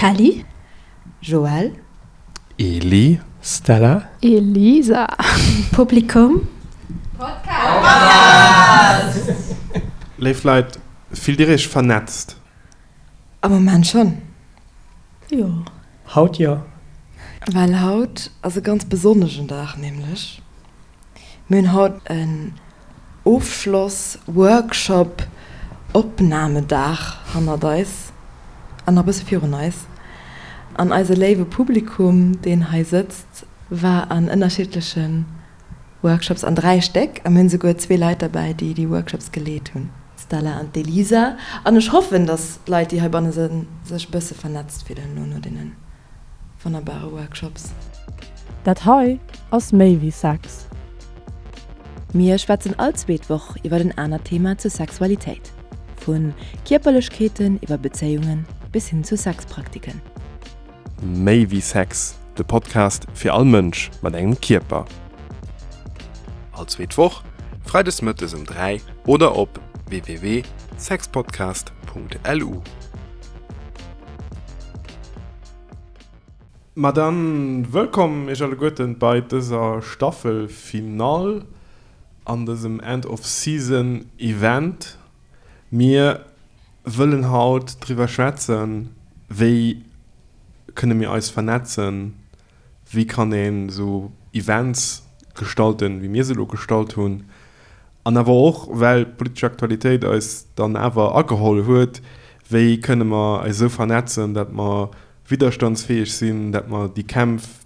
Kelly. Joël. Eli. Stella. Elisa. Publikum. Podcast! Léif Leit, fillt Dir Iech vernetzt? Am Moment schonn. Jo. Haut jo. Well haut ass e ganz besonneschen Dag, nämlech mir hunn haut en Ofschloss-Workshop Opnamedag hannert eis an nach e bësse virun eis. An eise léiwe Publikum, deen hei sëtzt, war an ënnerschiddleche Workshops, an 3 Stéck, a mir hunn esouguer zwee Leit derbäi, déi déi Workshops geleet hunn, d'Stella an d'Elisa. An ech hoffen, dass d'Leit, déi heibanne sënn, sech e bësse vernetzt fillen elo no deene wonnerbare Workshops. Dat hei ass méi wéi Sex. Mir schwätzen all zweet Woch iwwer en anert Thema zur Sexualitéit, vu Kierperlechkeeten iwwer Bezéiungen bis hin zu Sexpraktiken. Méi wéi Sex, de Podcast fir all Mënsch mat engem Kierper. All zweet Woch, freides mëttes um 3 oder op www.sexpodcast.lu. Ma dann wëllkomm iech alleguerten bei dëser Staffelfinall an dësem End of Season Event. Mir wëllen haut driwwer schwätzen, wéi kënne mir eis vernetzen, wéi kann een esou Events gestalten, wéi mir se elo gestalt hunn, an awer och, well d'politesch Aktualitéit eis dann awer ageholl huet, wéi kënne mer eis esou vernetzen, dat mer widderstandsfäeg sinn, dat mer déi Kämpf,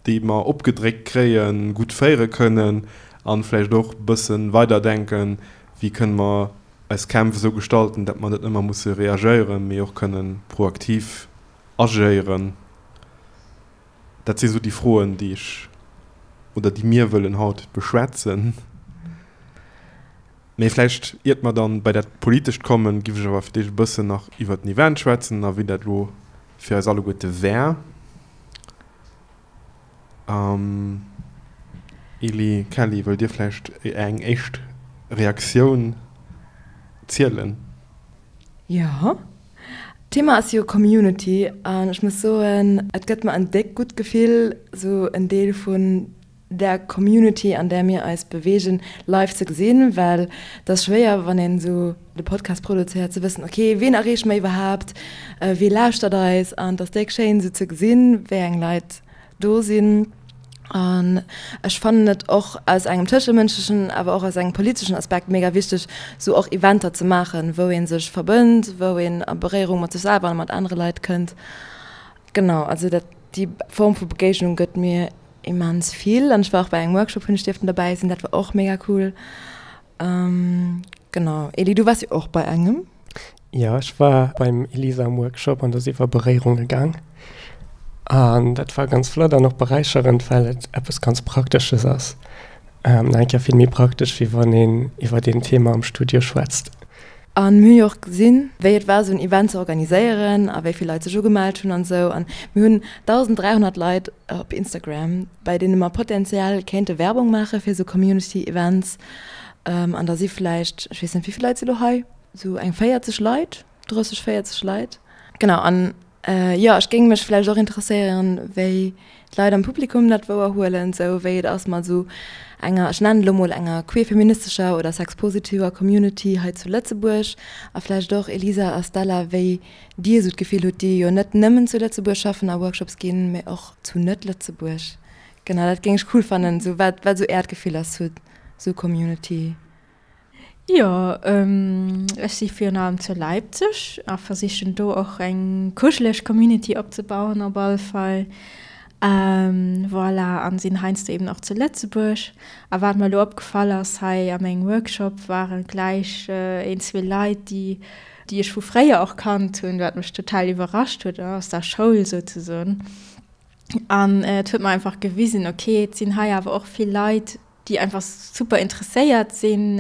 déi mer opgedréckt kréien, gutt féiere kënnen an vläicht och e bësse weiderdenken, wéi kënne mer eis Kämpf esou gestalten, dat mer net ëmmer musse reagéieren, mee och kënnen proaktiv agéieren. Dat si sou déi Froen, déi ech oder déi mir wëllen haut beschwätzen. Mee vläicht, iert mer dann bei dat Politescht kommen, giff ech awer fir d'éischt e bëssen nach iwwert den Event schwätzen a wéi dat elo fir eis alleguerte war. Eli, Kelly, wëllt Dir vläicht eng éischt Reaktioun zielen? Jo. D'Thema ass jo Community an ech muss soen, et gëtt mer en déck gutt Gefill, sou en Deel vun där Community, an där mir eis beweegen, live ze gesinn, well et ass schwéier, wann een esou de Podcast produzéiert, ze wëssen, ok, ween erreeche mer iwwerhaapt, wee lauschtert eis? An et ass déck schéin, esou ze gesinn, wéi eng Leit do sinn. An ech fannen et och aus engem tëschemënschlechen, awer och aus engem politeschen Aspekt mega wichteg, esou och Eventer ze maachen, wou ee sech verbënnt, wou een a Beréierung mat sech selwer a mat anere Leit kënnt. Genau, also dat, déi Form vu Begéignung gëtt mir Immens vill an ech war och bei engem Workshop hunn ech dierften derbäi sinn, dat war och mega cool. Genau Eli, du waars jo och bei engem. Jo, ech war beim Elisa am Workshop an do ass iwwer Beréierunge gaang an dat war ganz flott an och beräicherend, well et eppes ganz Praktesches ass. Nach eng Kéier vill méi praktesch, wéi wann een iwwer een Thema am Studio schwätzt. An mir hu jo och gesinn, wéi et war, esou en Event ze organiséieren a wéi vill Leit sech ugemellt hunn an esou. An mir hunn 1.300 Leit op Instagram, bei deene mer potenziell kéinte Werbung maache fir esou Community Events. An da si vläicht, ech weess net, wéi vill Leit si lo hei? Esou eng 40 Leit, 30, 40 Leit. Genau. An Jo, ech géing mech vläicht och interesséieren, wéi d'Leit am Publikum dat wouerhuelen, sou wéi et ass mat esou enger, ech nennen et elo mol enger queer-feministescher oder sexpositiver Community hei zu Lëtzebuerg. A vläicht och, Elisa a Stella, wéi Dir esou d'Gefill hutt, déi jo net nëmmen zu Lëtzebuerg schaffen a Workshops ginn, mee och zu Net-Lëtzebuerg. Genau, dat géing ech cool fannen, sou wat wat esou Äert Gefill ass zu esou Community. Jo, ech si virun allem zu Leipzig a versichen do och eng kuscheleg Community opzebauen op alle Fall. Voilà, an sinn heiansdo eben och zu Lëtzebuerg. A wat mer elo opgefall ass hei a mengem Workshop, ware gläich een, zwee Leit, déi déi ech vu fréier och kannt hunn, wat mech total iwwerrascht huet, aus der Schoul souzesoen. An et huet mer einfach gewisen, okay, et sinn hei awer och vill Leit, déi einfach super interesséiert sinn,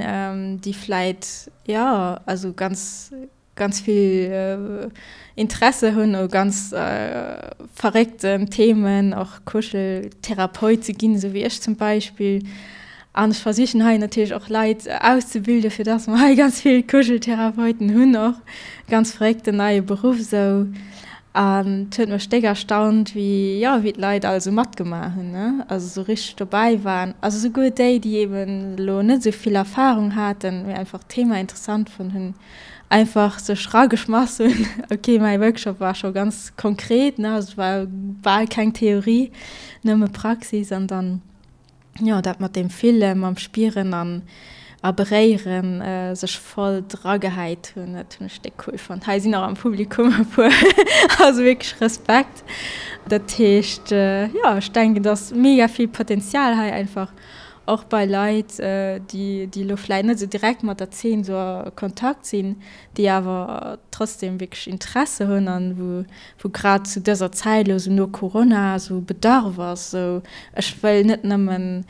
déi vläit, jo, also ganz, ganz vill Interesse hunn u ganz verréckten Themen, och Kuscheltherapeut ze ginn, esou wéi ech zum Beispill. An ech versichen hei natierlech och Leit auszebilden, fir dass mer hei ganz vill Kuscheltherapeuten hunn och. Ganz verréckten neie Beruff esou. An et huet mech déck erstaunt, wéi, jo, wéi d'Leit all esou matgemaach hunn, ne, also esou richteg dobäi waren. Also souguer déi, déi eben elo net esou vill Erfahrung haten, mee einfach d'Thema interessant fonnt hunn, einfach sech rageschmass hunn. Ok, mäi Workshop war scho ganz konkret, ne, also et war bal keng Theorie, nëmme Praxis an dann. jo, dat mat deem Fillen, mam Spieren an a Beréieren sech voll dragehäit hunn, dat hunn ech déck cool fonnt. Hei sinn och am Publikum e puer, also wierklech Respekt. Dat heescht, jo, ech denken, et ass mega vill Potenzial hei einfach och bei Leit, déi, déi elo vläit net esou direkt mat der Zeen esou a Kontakt sinn, déi awer trotzdem wierklech Interesse hunn an wou wou grad zu dëser Zäit elo esou no Corona esou Bedarf ass, esou ech wëll net nëmmen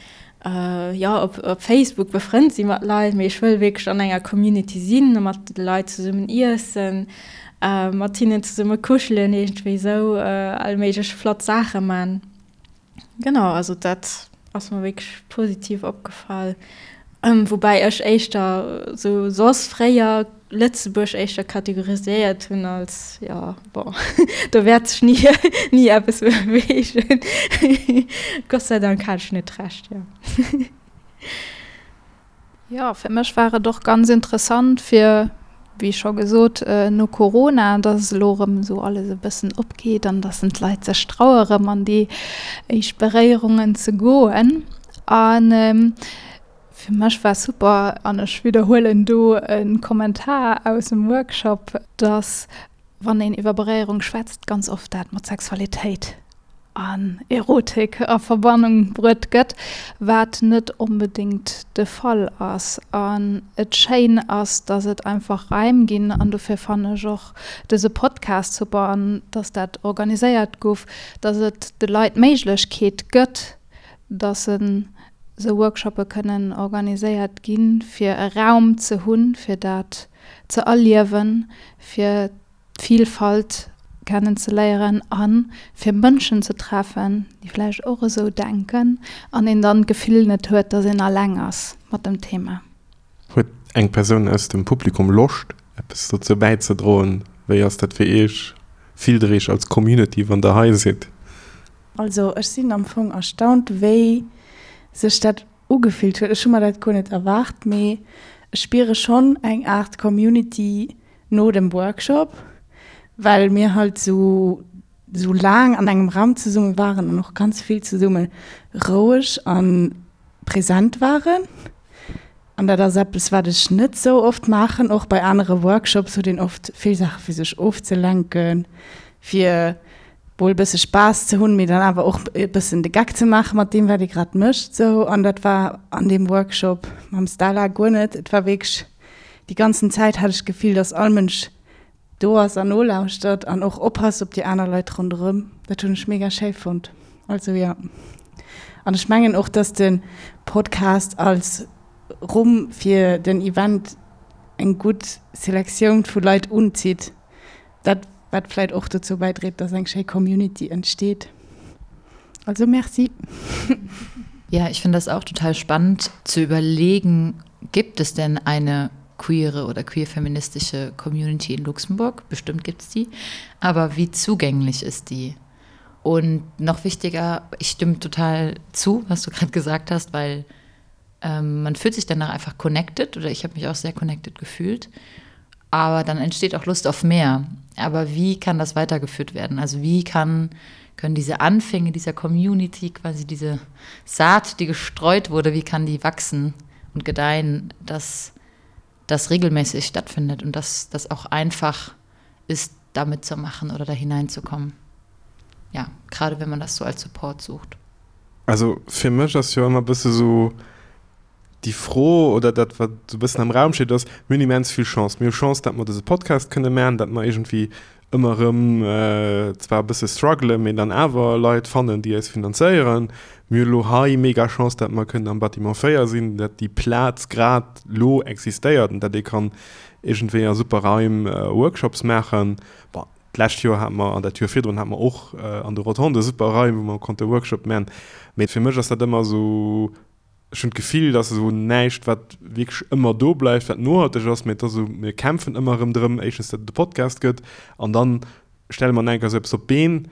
jo op op Facebook befrënnt si mat Leit, mee ech wëll wierklech an enger Community sinn, mat de Leit zesummen iessen, mat hinnen zesumme kuschelen, iergendwéi esou all méiglech flott Saache man. Genau, also dat ass mer wierklech positiv opgefall. Woubäi ech éischter sou soss fréier Lëtzebuerg éischter kategoriséiert hunn als, jo bon, do wäert sech ni ni eppes beweegen. Gott sei Dank hat ech net Recht, jo. Jo, fir mech war et och ganz interessant fir, wéi scho gesot, no Corona, dass elo erëm esou alles e bëssen opgeet an dass d'Leit sech traue erëm an déi éischt Beréierungen ze goen. A fir mech war super, an ech widderhuelen do e Kommentar aus dem Workshop, dass wann een iwwer Beréierung schwätzt, ganz oft dat mat Sexualitéit an Erotik a Verbannung bruet gëtt, wat net onbedéngt de Fall ass. An et schéin ass, dass et einfach Raim ginn, an dofir fannen ech och dëse Podcast super an dass dat organiséiert guff, dass et de Leit d'Méiglechkeet gëtt, dass se sou Workshoppe kënnen organiséiert ginn, fir e Raum ze hunn, fir dat ze erliewen, fir d'Vilfalt kennen ze léieren a fir Mënschen ze treffen, déi vläicht och esou denken an een dann d'Gefill net huet, dass een alleng ass mat dem Thema. Huet eng Persoun aus dem Publikum Loscht, eppes dozou bäizedroen? Wéi ass dat fir Iech? Fillt der Iech als Community, wann der hei sidd? Also ech sinn am Fong erstaunt, wéi sech dat ugefillt huet. Ech hu mer dat guer net erwaart, mee ech spiere schonn eng Aart Community no dem Workshop, well mir halt sou sou laang an engem Raum zesumme waren an och ganz vill zesumme roueg a present waren. An dat ass eppes, wat ech net sou oft maachen. Och bei anere Workshops huet een oft vill Saache fir sech ofzelenken, fir mol e bësse Spaass ze hunn, mee dann awer och e bëssen de Geck ze maache mat deem, wat ee grad mécht sou. An dat war an deem Workshop mam Stella guer net. Et war wierklech, déi ganzen Zäit hat ech d'Gefill, dass all Mënsch do ass an nolauschtert an och oppasst op déi aner Leit ronderëm. Dat hunn ech mega schéi fonnt. Also jo. An ech mengen och, dass de Podcast als Rumm fir den Event eng gutt Selektioun vu Leit unzitt. Dat wat vläit och dozou bäidréit, dass eng schéi Community entsteet. Also Merci. Ja, ich finde das auch total spannend zu überlegen, gibt es denn eine queere oder queer-feministische Community in Luxemburg? Bestimmt gibt es die. Aber wie zugänglich ist die? Und noch wichtiger, ich stimme total zu, was du gerade gesagt hast, weil ähm, man fühlt sich danach einfach connected oder ich habe mich auch sehr connected gefühlt. Aber dann entsteht auch Lust auf mehr. Aber wie kann das weitergeführt werden? Also wie kann, können diese Anfänge dieser Community, quasi diese Saat, die gestreut wurde, wie kann die wachsen und gedeihen, dass das regelmäßig stattfindet und dass das auch einfach ist, damit zu machen oder da hineinzukommen. Ja, gerade wenn man das so als Support sucht. Also fir mech ass jo ëmmer bësse sou déi Fro oder dat wat sou bëssen am Raum steet ass, mir hunn immens vill Chance. Mir hu Chance, datt mer dëse Podcast kënne maachen, datt mer iergendwéi ëmmer erëm zwar e bësse struggelen, mee dann awer Leit fannen, déi eis finanzéieren. Mir hu lo hei mega Chance, datt mer kënnen am Bâtiment 4 sinn, datt déi Plaz grad lo existéiert an datt ee kann iergendwéi a super Raim Workshops maachen. Bon, d'lescht Joer hate mer an dat Joer virdrun hate mer och an de Rotondë super Raim, wou mer konnte Workshop maachen. Mee fir mech ass dat ëmmer esou, ech hunn d'Gefill, dass esou näischt, wat wierklech ëmmer do bleift, wat nohalteg ass, mee et ass esou, mir kämpfen ëmmer erëm drëm, éischtens, datt et e Podcast gëtt an dann. stelle mer enker esou eppes op d'Been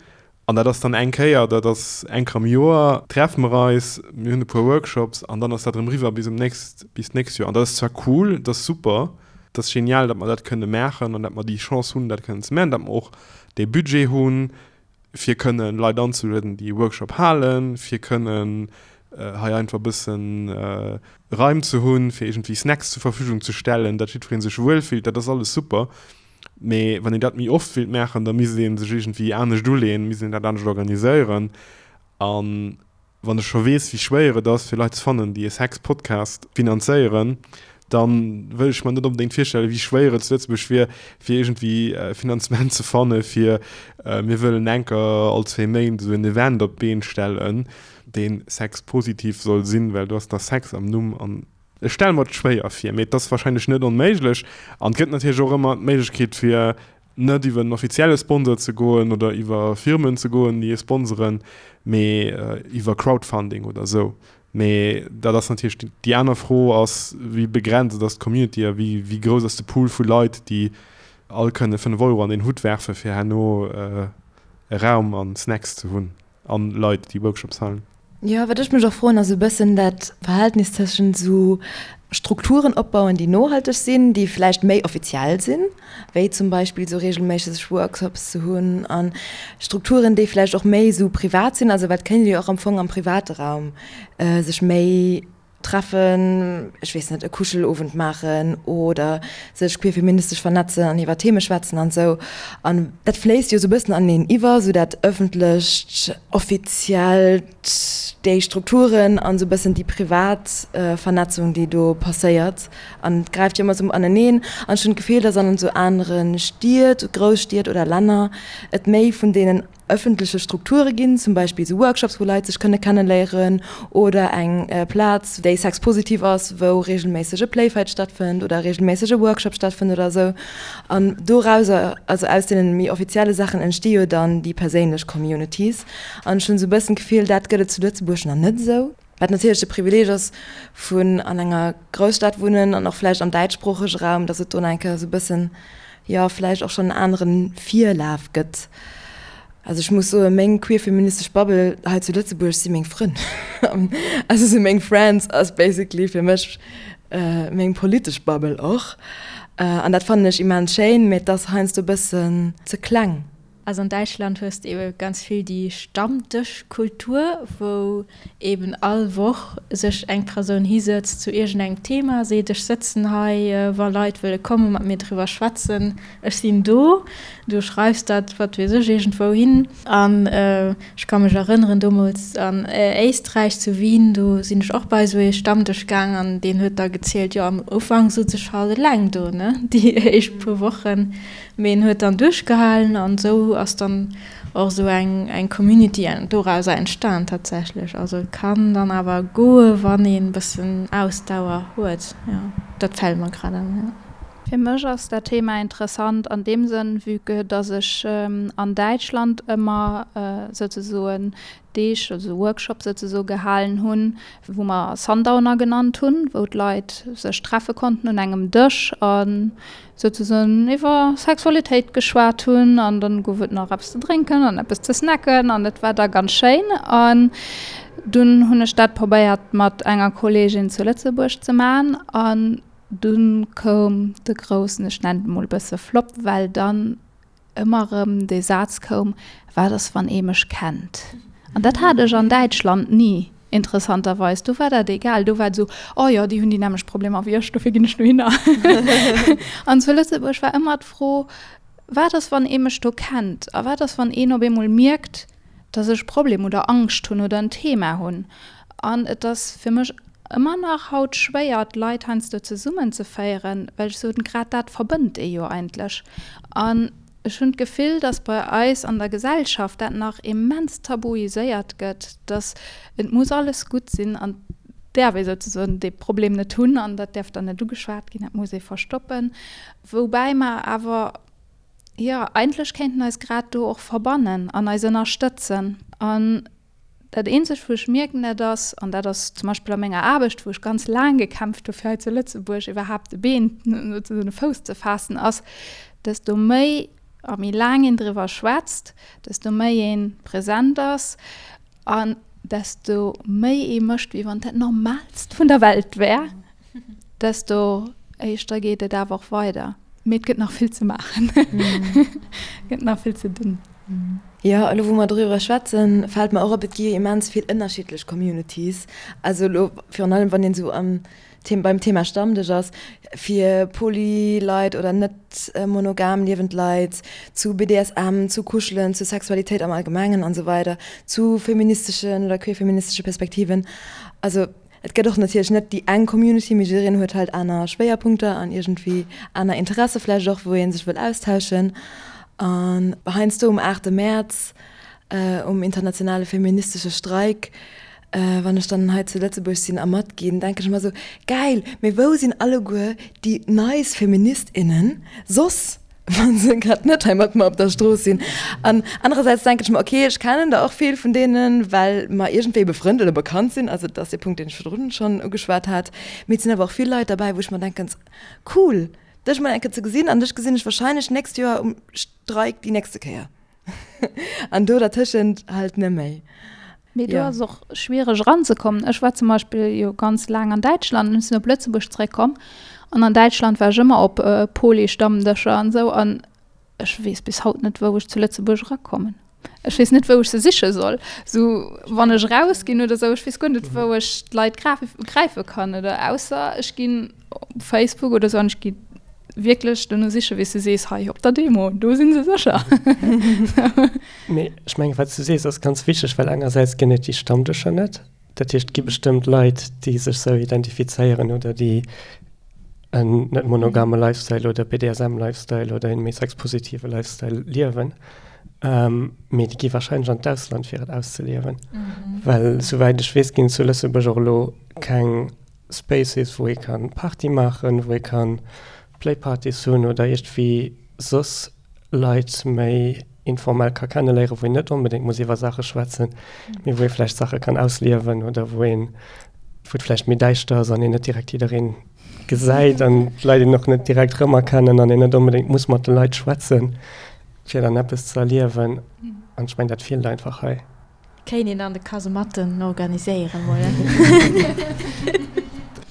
an dat ass dann eng Kéier, dat ass eng Kéier am Joer, treffe mer eis, mir hunn e puer Workshops an dann ass dat erëm eriwwer bis um nächst, bis d'nächst Joer. An dat ass zwar cool, dat ass super, dat ass genial, datt mer dat kënne maachen an datt mer déi Chance hunn, dat kënnen ze maachen, datt mer och dee Budget hunn, fir kënnen Leit anzelueden, déi e Workshop halen, fir kënnen hei einfach e bëssen Raim ze hunn, fir iergendwéi Snacks zur Verfügung ze stellen, datt jiddweree sech wuelfillt, dat ass alles super. Mee wann een dat méi oft wéilt maachen, da misst ee sech iergendwéi anescht uleeën, misst een dat anescht organiséieren. A wann ech scho weess, wéi schwéier et ass, fir Leit ze fannen, déi e Sex-Podcast finanzéieren, da wëll ech mer net onbedéngt virstellen, wéi schwéier et zu Lëtzebuerg wier, fir iergendwéi Finanzement ze fanne fir, mir wëllen enker all zwee Méint esou en Event op d'Been stellen, dee sexpositiv soll sinn, well do ass da Sex am Numm an Ech stelle mer et schwéier vir, mee et ass wahrscheinlech net onméiglech. An et gëtt natierlech och ëmmer d'Méiglechkeet, fir net iwwer en offizielle Sponsor ze goen oder iwwer Firmen ze goen, déi ee sponseren, mee iwwer Crowdfunding oder esou. Mee dat ass natierlech déi aner Fro ass, wéi begrenzt ass d'Community a wéi wéi grouss ass de Pool vu Leit, déi all kënne 5 Euro an deen Hutt werfen, fir herno e Raum a Snacks ze hunn. An Leit, déi Workshops halen. Jo, wat ech mech och froen, ass e bëssen dat Verhältnis tëschent esou Strukturen opbauen, déi nohalteg sinn, déi vläicht méi offiziell sinn, wéi zum Beispill esou reegelméisseg Workshops ze hunn, a Strukturen, déi vläicht och méi esou privat sinn, also well et kéint ee jo och am Fong am private Raum sech méi treffen, ech weess net, e Kuschelowend maachen oder sech queerfeministesch vernetzen an iwwer Theme schwätzen an esou. An dat fléisst jo esou e bëssen aneneen iwwer, esou dat ëffentlecht, offiziellt, déi Strukturen an esou e bëssen déi privat Vernetzung, déi do passéiert. An et gräift jo ëmmer esou aneneen. An ech hunn d'Gefill, datt an esou anere Stied, Grousstied oder Länner et méi vun deenen ëffentleche Strukture ginn, zum Beispill esou Workshops, wou Leit sech kënne kenneléieren oder eng Plaz, déi sexpositiv ass, wou reegelméisseg e Playfight stattfënnt oder reegelméisseg e Workshop stattfënnt oder esou. An dorauser, also aus deene méi offizielle Saachen, entsti jo dann déi perséinlech Communities. An ech hunn esou e bëssen d'Gefill, dat gëtt et zu Lëtzebuerg nach net esou. Wat natierlech de Privileeg ass vun an enger Grousstad wunnen an och vläicht am däitschsproochege Raum, datt et do nach eng Kéier esou e bëssen, jo, vläicht och schonn en anere Virlaf gëtt. Also ech muss soen, meng queer-feministesch Bubble hei zu Lëtzebuerg si meng Frënn. Also si meng Friends ass basically fir mech meng politesch Bubble och. An dat fannen ech immens schéin, mee et ass heiansdo e bëssen ze kleng. Also an Däitschland hues de ebe ganz vill déi Stammdëschkultur, wou eben all Woch sech eng Persoun hisëtzt zu iergendengem Thema, seet ech sëtzen hei, wa Leit wëlle komme mat mir driwwer schwätzen, ech sinn do. Du schreifs dat, wat weess ech, iergendwou hin. An ech ka mech erënneren, domols an Éisträich, zu Wien, do sinn ech och bei esou ee Stammdësch gaang an deen huet da gezielt, jo am Ufank sot ech halt eleng do, ne, déi éischt puer Wochen. Mee en huet dann duerchgehalen an esou ass dann och esou eng eng Community dorauser entstan tatsächlech. Also et kann dann awer goe wann een bëssen Ausdauer huet, jo. Dat fält mer grad an, jo. Fir mech ass dat Thema interessant an deem Sënn, vue que dass ech an Däitschland ëmmer souzesoen Deeg, also Workshops souzesoe gehalen hunn, wou mer Sundowner genannt hunn, wou d'Leit sech treffe konnten un engem Dësch a souzesoen iwwer Sexualitéit geschwat hunn an dann gouf et nach eppes ze drénken an eppes ze snacken an et war da ganz schéin. An dunn hunn ech dat probéiert mat enger Kolleegin zu Lëtzebuerg ze man an dunn koum de groussen, ech nennen et mol e bësse Flop, well dann ëmmer erëm dee Saz koum, Wat ass, wann ee mech kennt? An dat hat ech an Däitschland ni, interessanterweis. Do war dat egal. Do war et esou, Oh jo, déi hunn déi nämmlecht Problemer wéi ech, dofir ginn ech dohinner. An zu Lëtzebuerg war ëmmer d'Fro, Wat ass, wann ee mech do kennt? A wat ass, wann een op eemol mierkt, dass ech Problem oder Angscht hunn oder en Thema hunn? An et ass fir mech ëmmer nach haut schwéier, d'Leit heiansdo zesummenzeféieren, well ech soen, grad dat verbënnt ee jo eigentlech. An ech hunn d'Gefill, dass bei eis an der Gesellschaft dat nach immens tabuiséiert gëtt, dass et muss alles gutt sinn an et däerf ee souzesoen dee Problem net hunn an dat däerf dann net ugeschwat ginn, dat muss ee verstoppen. Woubäi mer awer, jo, eigentlech kéinten eis grad do och verbannen an eis ënnerstëtzen. An Dat eenzegt wou ech mierken, dat ass, an dat ass zum Beispill a menger Aarbecht, wou ech ganz laang gekämpft hu fir hei zu Lëtzebuerg iwwerhaapt e Been, sozesoen e Fouss ze faassen, ass, desto méi. A méi laang een driwwer schwätzt, desto méi ee present ass an desto méi ee mécht, wéi wann dat Normaalst vun der Welt wär, desto éischter geet et awer och weider. Mee et gëtt nach vill ze maachen, et gëtt nach vill ze dinn. Jo, elo wou mer doriwwer schwätzen, fält mer och op, et gi jo immens vill ënnerschiddlech Communities. Also elo virun allem, wann een esou am beim Thema Stammdësch ass, fir Poly-Leit oder net monogam liewend Leit, zu BDSM, zu Kuschelen, zu Sexualitéit am Allgemengen an esou weider, zu feministeschen oder queerfeministesche Perspektiven. Also et gëtt och natierlech net déi eng Community, mee jiddereen huet halt aner Schwéierpunkter an iergendwéi aner Interesse vläicht och, wou ee sech wëll austauschen. An heiansdo um 8 Mäerz, um internationale feministesche Streik, Wann ech dann hei zu Lëtzebuerg sinn a matginn, denken ech ëmmer esou, Gäil, mee wou sinn alleguer déi nice Feministinnen soss, wa se grad net hei mat mer op der Strooss sinn? An anerersäits denken ech mer, okay, ech kennen der och vill vun deenen, well mer iergendwéi befrënnt oder bekannt sinn, also dat ass dee Punkt, deen ech virdrun schonn ugeschwat hat. Mee et sinn awer och vill Leit derbäi, wou ech mer denken, Cool, dech mol eng Kéier ze gesinn an dech gesinn ech warscheinlech d'nächst Joer um Streik déi nächste Kéier. An do dertëschent halt net méi. Mee do ass och schwiereg eranzekommen. Ech war zum Beispill jo ganz laang an Däitschland an ech sinn op Lëtzebuerg zeréckkomm. An an Däitschland war ech ëmmer op Poly-Stammdëscher an esou an ech weess bis haut net, wou ech zu Lëtzebuerg erakommen. Ech weess net, wou ech se siche soll. Sou wann ech erausginn oder esou, ech weess guer net, wou ech d'Leit gräife kann oder ausser ech ginn op Facebook oder sou an ech gi wierklech dono sichen, wéi s de sees, hei op der Demo, do si se sécher. Mee ech mengen, wat s du sees, ass ganz wichteg, well engersäits ginn et déi Stammdëscher net. Dat heescht, et gi bestëmmt Leit, déi sech sou identifizéieren oder déi en net monogame Lifestyle oder BDSM-Lifestyle oder een méi sexpositive Lifestyle liewen. Mee déi gi warscheinlech an d'Ausland, fir et auszeliewen. Well souwäit ech weess, ginn et zu Lëtzebuerg och elo keng Spaces, wou ee kann Party maachen, wou ee kann Playpartys hunn oder iergendwéi soss Leit méi informell ka kenneléieren, wou een net onbedéngt muss iwwer Saache schwätzen, mee wou ee vläicht Saache kann ausliewen oder wou een, wou et vläicht méi däischter ass an een net direkt jiddereen gesäit an d'Leit een och net direkt rëmerkennen an een net onbedéngt muss mat de Leit schwätzen, fir dann eppes ze erliewen. An ech mengen, dat feelt einfach hei. Kéint een an de Kasematten organiséieren mol.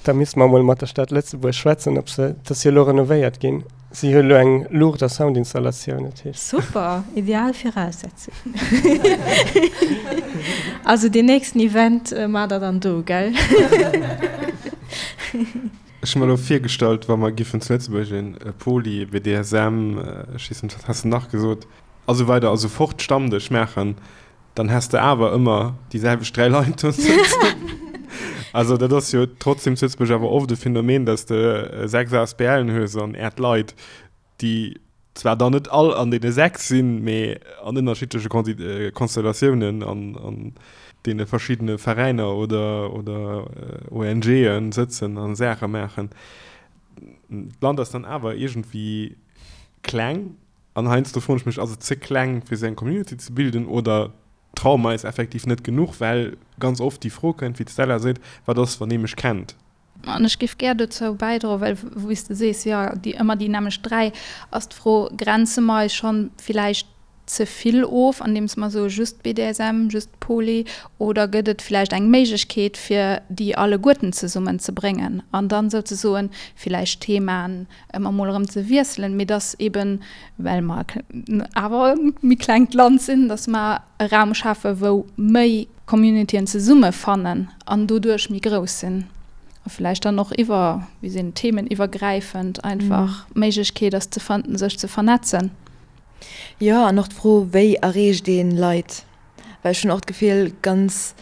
Da misste mer mol mat der Stad Lëtzebuerg schwätzen, ob se, et ass jo elo renovéiert ginn, si hu elo eng Luucht a Soundinstallatioun, dat heescht. Super, ideal Viraussetzung. Also deen nächsten Event maacht der dann do, gell? Ech hu mer elo virgestallt, wa mer giffen zu Lëtzebuerg e Poly, BDSM, ech weess net, wat has de nach gesot? A sou weider a sou fort Stammdësch maachen, dann häss de awer ëmmer déi selwecht 3 Leit do sëtzen. Also dat ass jo trotzdem zu Lëtzebuerg awer oft e Phänomen, dass de 6 ASBLen hues an äert Leit, déi zwar dann net all an deene 6 sinn, mee an ënnerschiddleche Konstellatiounen an an deene verschiddene Veräiner oder oder ONGen sëtzen a Saache maachen. D'Land ass dann awer iergendwéi kleng. An heiansdo froen ech mech, ass et ze kleng fir sou eng Community ze bilden oder traue mer eis effektiv net genuch, well ganz oft déi Fro kënnt, wéi d'Stella seet, wat ass wann ee mech kennt? An ech géif gär dozou bäidroen, well wéi s de sees, jo, déi ëmmer déi nämmlecht 3, ass d'Fro, grenze mer eis schonn villäicht ze vill of, andeems mer soe just BDSM, just Poly, oder gëtt et villäicht eng Méiglechkeet fir déi alleguerten zesummen ze bréngen an dann souzesoen villäicht Themaen ëmmer mol erëm ze wiesselen, mee dass eben, well mer awer e méi klengt Land sinn, dass mer e Raum schafen, wou méi Communityen zesummefannen an doduerch méi grouss sinn a vläicht dann och iwwer, wéi sinn, theemeniwwergräifend einfach d'Méiglechkeet ass ze sech ze vernetzen. Jo, an och d'Fro, wéi erreecht ee Leit? Well ech hunn och d'Gefill, ganz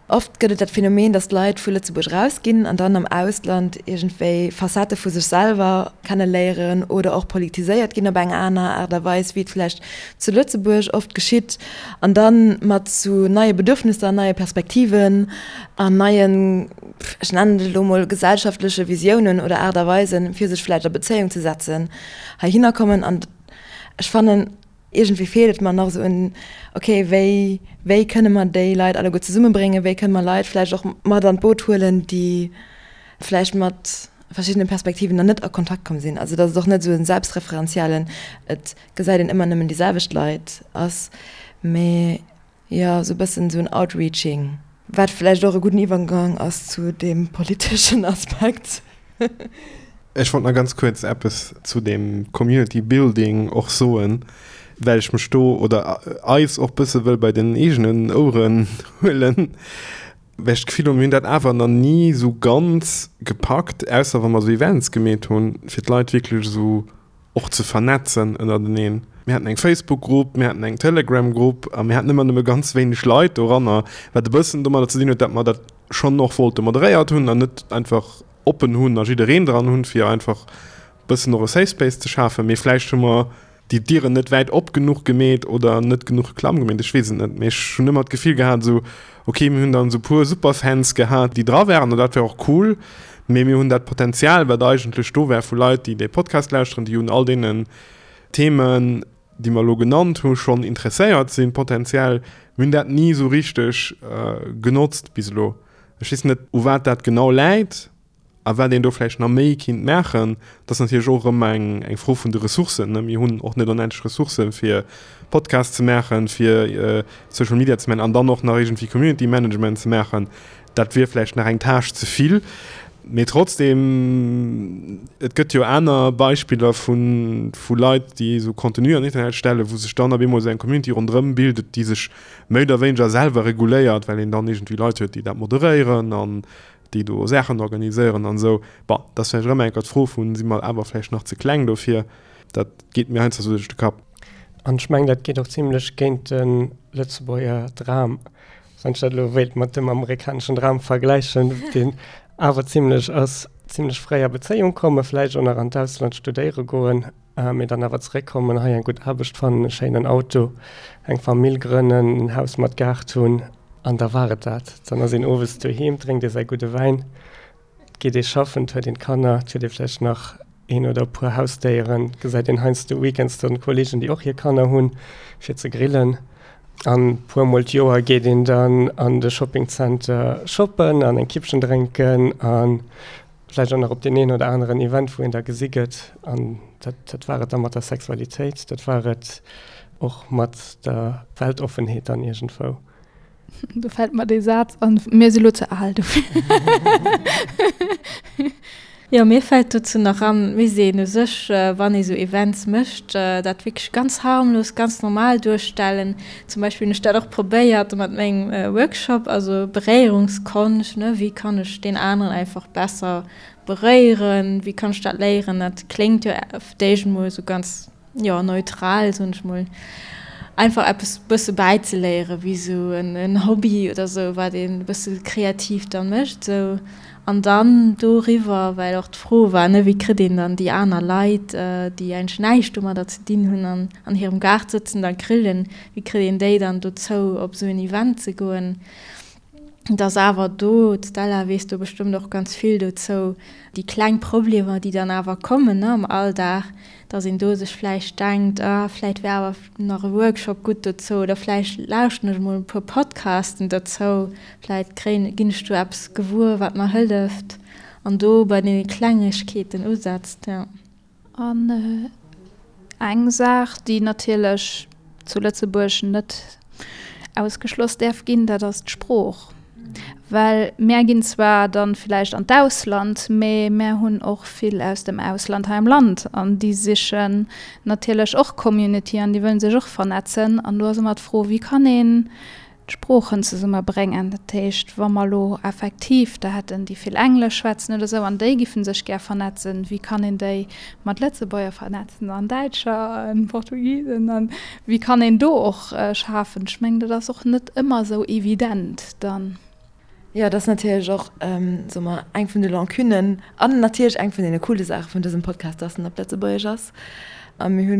oft gëtt et dat Phänomen, datt Leit vu Lëtzebuerg erausginn an dann am Ausland iergendwéi Facettë vu sech selwer kenneléieren oder och politiséiert ginn op eng aner Aart a Weis, wéi et vläicht zu Lëtzebuerg oft geschitt, an da mat sou neie Bedürfnisser, neie Perspektiven an neien, ech nennen et elo mol, gesellschaftleche Visiounen oder Aart a Weisen, fir sech vläicht a Bezéiung ze setzen, heihinner kommen. An ech fannen, Iergendwéi feelt et mer nach esou un, ok, wéi, wéi kënne mer déi Leit alleguer zesummebréngen, wéi kënne mer Leit vläicht och mat an d'Boot huelen, déi vläicht mat verschiddene Perspektiven nach net a Kontakt komm sinn. Also datt et och net esou e selbstreferenziellen, et gesäit een ëmmer nëmmen déi selwecht Leit ass, mee jo esou e bëssen esou en Outreaching. Wat vläicht och e gudden Iwwergang ass zu deem politeschen Aspekt. Ech wollt nach ganz kuerz eppes zu deem Community Building och soen, well ech mech do oder eis och bësse wëll bei den eegenen Oueren huelen, well ech d'Gefill hunn, mir hunn dat awer nach ni esou ganz gepackt, ausser wa mer esou Events gemeet hunn, fir d'Leit wierklech esou och ze vernetzen ënnerteneen. Mir haten eng Facebook-Grupp, mir haten eng Telegram-Grupp a mir haten ëmmer nëmme ganz wéineg Leit doranner, wat e bëssen domadder ze dinn huet, datt mer dat schonn och wollte moderéiert hunn an net einfach oppen hunn a jiddereen dran hunn, fir einfach bëssen och e Safe Space ze schafen. Mee vläicht hu mer déi Dieren net wäit op genuch gemeet oder net genuch Reklamm gemeet, ech weess et net. Mee ech hunn ëmmer d'Gefill gehat esou, okay, mir hunn dann esou puer Superfans gehat, déi dra waren an dat war och cool, mee mir hunn dat Potenzial, wat eigentlech do war vu Leit, déi dee Podcast lauschteren, déi un all deenen Themen, déi mer elo genannt hu schonn interesséiert sinn, potenziell, mir hunn dat ni esou richteg genotzt bis elo. Ech weess net, u wat dat genau läit a wat een do vläicht nach méi kinnt maachen. Dat ass natierlech och erëm eng, eng Fro vun de Ressourcen, ne. Mir hunn och net onendlech Ressourcen, fir Podcasts ze maachen, fir Social Media ze maachen an dann och nach iergendwéi Community Management ze maachen. Dat wier vläicht nach eng Tâche ze vill. Mee trotzdem, et gëtt jo aner Beispiller vu, vu Leit, déi esou Contenu an den Internet stellen, wou sech dann op eemol esou eng Community ronderëm bildet, déi sech méi oder wéineger selwer reguléiert, well een dann iergendwéi Leit huet, déi dat moderéieren an déi do Saachen organiséieren an esou. Bon, dat ass vläicht erëm eng Kéier d'Fro vun, si mer awer vläicht nach ze kleng dofir? Dat geet mir heiansdo esou duerch de Kapp. An ech mengen, dat geet och zimlech géint de Lëtzebuerger Dram, wann ech dat elo wéilt mat dem amerikaneschen Dram vergläichen, deen awer zimlech ass, zimlech fréi a Bezéiung kommen, vläicht och nach an d'Ausland studéiere goen, mee dann awer zeréckkommen, hei eng gutt Aarbecht fannen, e schéinen Auto, eng Famill grënnen, en Haus mat Gaart hunn an da war et dat. Dann ass een owes doheem, drénkt ee säi gudde Wäin, et geet ee schaffen, et huet een d'Kanner, et huet ee vläicht nach een oder e puer Hausdéieren, et gesäit een heiansdo weekends dann Kolleegen, déi och hir Kanner hunn, fir ze grillen. An e puer mol d'Joer geet een dann an de Shoppingzenter shoppen an eng Kippchen drénken a vläicht och nach op deen een oder aneren Event, wou een da gesi gëtt. An dat, dat war et da mat der Sexualitéit, dat war et och mat der Weltoffenheet dann iergendwou. Do fält mer dee Saz an, Mir si lo ze al dofir. Jo, mir fält dozou nach an, mir sinn u sech, wann ee sou Events mécht, dat wierklech ganz harmlos, ganz normal duerstellen. Zum Beispill hunn ech dat och probéiert mat mengem Workshop, also Beréierungskonscht, ne, wéi kann ech deen aneren einfach besser beréieren, wéi kann ech dat léieren? Dat kléngt jo op d'éischt emol esou ganz jo, neutral, soen ech mol, einfach eppes bësse bäizeléieren, wéi sou en Hobby oder sou, wat een e bësse kreativ da mécht sou. An dann doriwwer, well och d'Fro war, ne, wéi kritt een dann déi aner Leit, déi eigentlech näischt domadder ze dinn hunn an an hirem Gaart sëtzen a grillen, wéi kritt een déi dann dozou, op esou en Event ze goen? Et ass awer do, d'Stella weess do bestëmmt och ganz vill dozou, déi kleng Problemer, déi dann awer kommen, ne, am Alldag, dass een do sech vläicht denkt, ah, vläicht wär awer nach e Workshop gutt dozou oder vläicht lauschten ech emol e puer Podcasten dozou, vläicht kréien, ginn ech do eppes gewuer, wat mer hëlleft an do bei deene Klengegkeeten usetzt, jo. An eng Saach, déi natierlech zu Lëtzebuerg net ausgeschloss däerf ginn, dat ass d'Sprooch. Well mär ginn zwar dann villäicht an d'Ausland, mee mär hunn och vill aus dem Ausland hei am Land an déi sichen natierlech och Community an déi wëllen sech och vernetzen. An do ass ëmmer d'Fro, wéi kann een d'Sproochen zesumme bréngen. Dat heescht, wa mer elo effektiv der hätten, déi vill Englesch schwätzen oder esou, an déi giffen sech gär vernetzen, wéi kann een déi mat Lëtzebuerger vernetzen an Däitscher a Portugisen an wéi kann een do och schafen? Ech mengen, dat ass och net ëmmer esou evident dann. Jo, dat ass natierlech och, soe mer, eng vun de Lancunen an natierlech eng vun deene coole Saache vun dësem Podcast, dass en op Lëtzebuergesch ass. A mir hu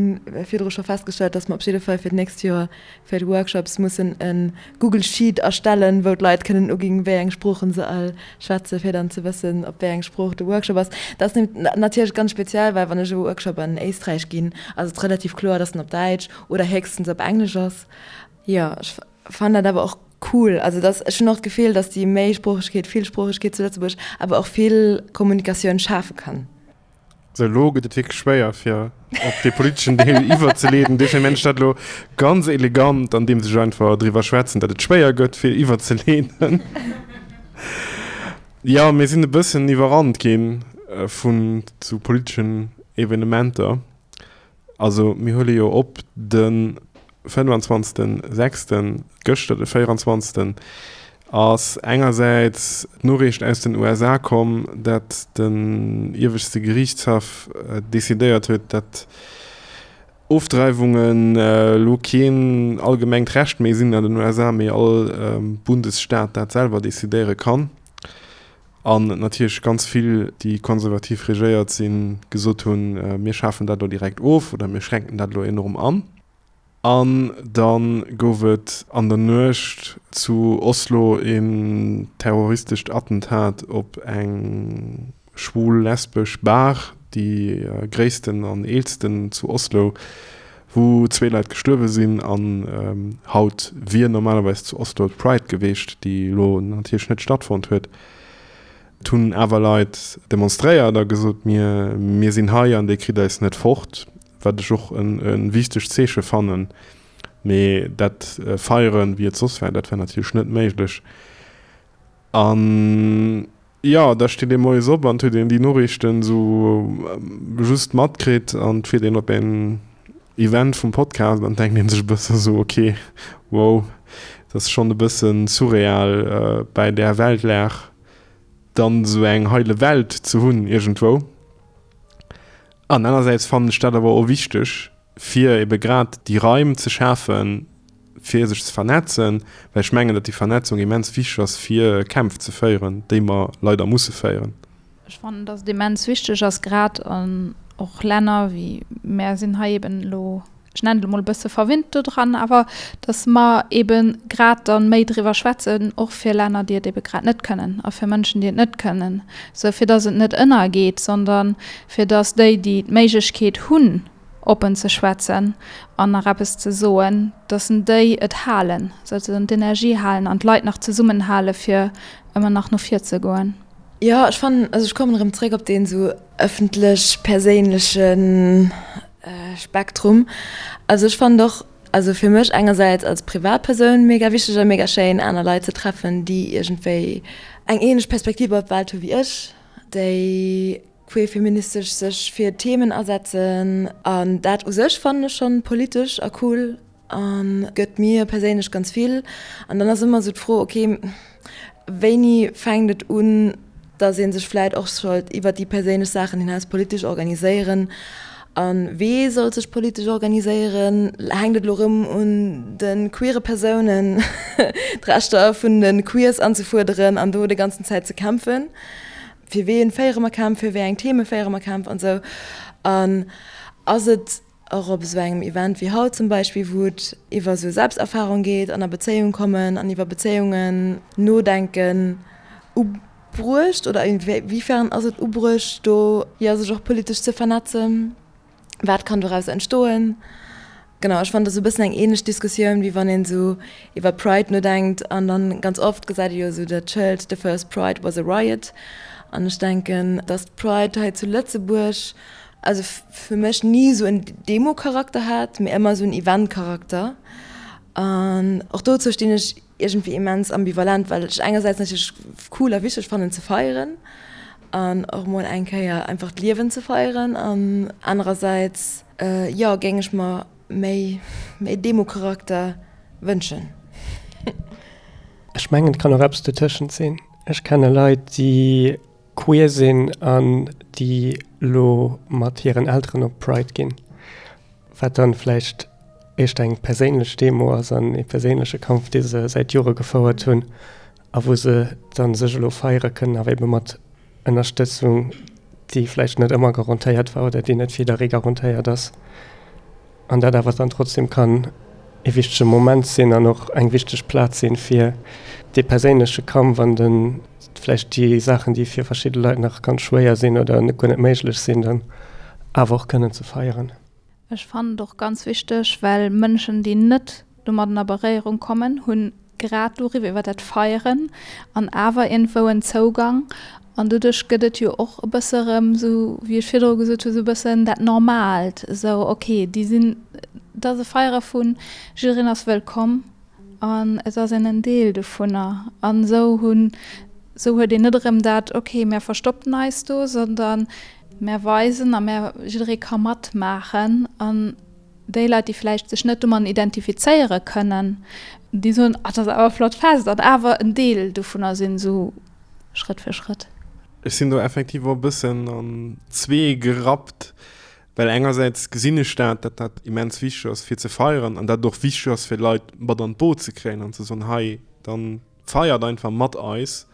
virdru scho festgestallt, dass mer op jidde Fall fir d'nächst Joer fir d'Workshops mussen e Google Sheet erstellen, wou d'Leit kënnen uginn, wéi eng Sproochen se all schwätzen, fir dann ze wëssen, op wéi eng Sprooch de Workshop ass. Dat ass natierlech ganz speziell, well wann ech e Workshop an Éisträich ginn, ass et relativ kloer, dass en op Däitsch oder héchstens op Englesch ass. Jo, ech fannen dat awer och. cool. Also dass, ech hunn och d'Gefill, dass déi Méisproochegkeet, Villsproochegkeet zu Lëtzebuerg awer och vill Kommunikatioun schafe kann. Sou, elo gëtt et wierklech schwéier, fir op dee politeschen Deel iwwerzeleeden. Dofir mengen ech dat elo ganz elegant, andeems ech einfach driwwer schwätzen, datt et schwéier gëtt, fir iwwerzeleeden. Jo, mir sinn e bëssen iwwerrannt gi vun sou politeschen Evenementer. Also mir huele jo op de 25. Sechsten, gëschter de 24. Ass engersäits d'Noriicht aus den USA komm, dat den ieweschte Geriichtshaff decidéiert huet, dat Ofdreiwungen elo keen allgemengt Recht méi sinn an den USA, mee all Bundesstaat dat selwer decidéiere kann. An natierlech ganz vill, déi konservativ regéiert sinn, gesot hunn, mir schafen dat elo direkt of oder mir schränken dat elo enorm an. An da gouf et an der Nuecht zu Oslo een terroristescht Attentat op eng schwul-lesbesch Bar, déi gréissten an eelsten zu Oslo, wou zwee Leit gestuerwe sinn an haut wier normalerweis zu Oslo d'Pride geweecht, déi elo natierlech net stattfonnt huet. Et hunn awer Leit demonstréiert a gesot, mir mir sinn hei an dir kritt eis net fort, wat ech och e wichtegt Zeeche fannen. Mee dat feieren, wéi et soss war, dat war natierlech net méiglech. An jo, da steet ee moies op an et huet een déi Noriichten esou just matkritt an et fiert een op een Event vum Podcast an denkt een sech e bësse esou, ok, wow, dat ass schonn e bësse surreal bäi där Weltlag dann esou eng heile Welt ze hunn iergendwou. An anersäits fannen ech dat awer och wichteg, fir ebe grad déi Raim ze schafen, fir sech ze vernetzen, well ech mengen, datt déi Vernetzung immens wichteg ass, fir Kämpf ze féieren, déi mer leider musse féieren. Ech fannen, datt et immens wichteg ass, grad an och Länner wéi mär sinn hei eben elo, ech nennen et emol e bësse verwinnt dodran, awer datt mer ebe grad dann méi driwwer schwätzen, och fir Länner, déi et ebe grad net kënnen a fir Mënschen, déi et net kënnen, sou fir datt et net ënnergeet, sondern fir datt déi, déi d'Méiglechkeet hunn, oppen ze schwätzen an nach eppes ze soen, dass en déi et halen, souzesoen d'Energie halen an d'Leit nach zesummenhale fir ëmmer nach no vir ze goen. Jo, ech fannen, also ech kommen erëm zréck op deen esou ëffentlech-perséinleche Spektrum. Also ech fannen och, also fir mech engersäits als Privatpersoun mega wichteg a mega schéin aner Leit ze treffen, déi iergendwéi eng ähnlech Perspektiv op d'Welt hu wéi ech, déi queerfeministesch sech fir Themen asetzen an dat u sech fannen ech schonn politesch a cool a gëtt mir perséinlech ganz vill. An dann ass ëmmer esou d'Fro, ok, wéini fänkt et un, datt ee sech vläit och sollt iwwer déi perséinlech Saachen hinaus politesch organiséieren a wee sollt sech politesch organiséieren? Hänkt et elo erëm un de queere Persounen, d'Rechter vun de Queers anzefuerderen an do déi ganzen Zäit ze kämpfen? Fir ween féiere mer Kämpf, fir wéi eng Theme féiere mer Kämpf an esou. An ass et och op esou engem Event wéi haut zum Beispill, wou et iwwer esou Selbsterfahrung geet an a Bezéiung kommen an iwwer Bezéiungen nodenken, ubruecht oder inwiefern ass et ubruecht do, jo, sech och politesch ze vernetzen? Wat kann doraus entstoen? Genau, ech fannen, dat ass e bëssen eng ähnlech Diskussioun, wéi wann een esou iwwer Pride nodenkt an dann ganz oft gesäit ee jo esou dat Schëld The first Pride was a riot. An ech denken, dass d'Pride hei zu Lëtzebuerg, also fir mech ni esou en Demo-Charakter hat, mee ëmmer esou en Event-Charakter. An och dozou stinn ech iergendwéi immens ambivalent, well ech engersäits natierlech cool a wichteg fannen ze feieren an och mol eng Kéier einfach d'Liewen ze feieren an anerersäits, jo, géing ech mer méi méi Demo-Charakter wënschen. Ech mengen, et kann och eppes dotëschent sinn. Ech kenne Leit, déi queer sinn an déi elo mat hiren Elteren op d'Pride ginn, wat dann vläicht éischter eng perséinlech Demo ass an ee perséinleche Kampf, dee se säit Jore gefouert hunn a wou se dann sech elo feiere kënnen, awer ebe mat Ënnerstëtzung, déi vläicht net ëmmer garantéiert war oder déi net fir jidderee garantéiert ass, an dat awer dann trotzdem kann ee wichtege Moment sinn an och eng wichteg Plaz sinn, fir dee perséinleche Kampf an de vläicht déi Saachen, déi fir verschidde Leit nach ganz schwéier sinn oder guer net méiglech sinn, dann awer och kënnen ze feieren. Ech fannen et och ganz wichteg, well Mënschen, déi net domadden a Beréierung kommen, hunn. Grad doriwwer, iwwer dat Feieren an awer iergendwou en Zougang. An doduerch gëtt et jo och e bësse erëm esou, wéi ech virdru gesot hu, esou e bëssen dat Normaalt, esou ok, déi sinn, et ass e Feiere vun jiddereen ass wëllkomm an et ass een en Deel dovunner. An esou hunn, esou huet een net erëm dat, ok, mär verstoppen eis do, sondern mär weisen a mär, jidderee ka matmaachen an déi Leit, déi vläicht sech net domadden identifizéiere kënnen, déi soen, ah, dat ass awer e flott Fest an awer en Deel dovunner sinn, esou Schrëtt fir Schrëtt. Ech sinn do effektiv och e bëssen an zwee gerappt, well engersäits gesinn ech dat, datt dat immens wichteg ass fir ze feieren an dat et och wichteg ass fir Leit mat an d'Boot ze kréien an ze soen, hei, dann feiert einfach mat eis.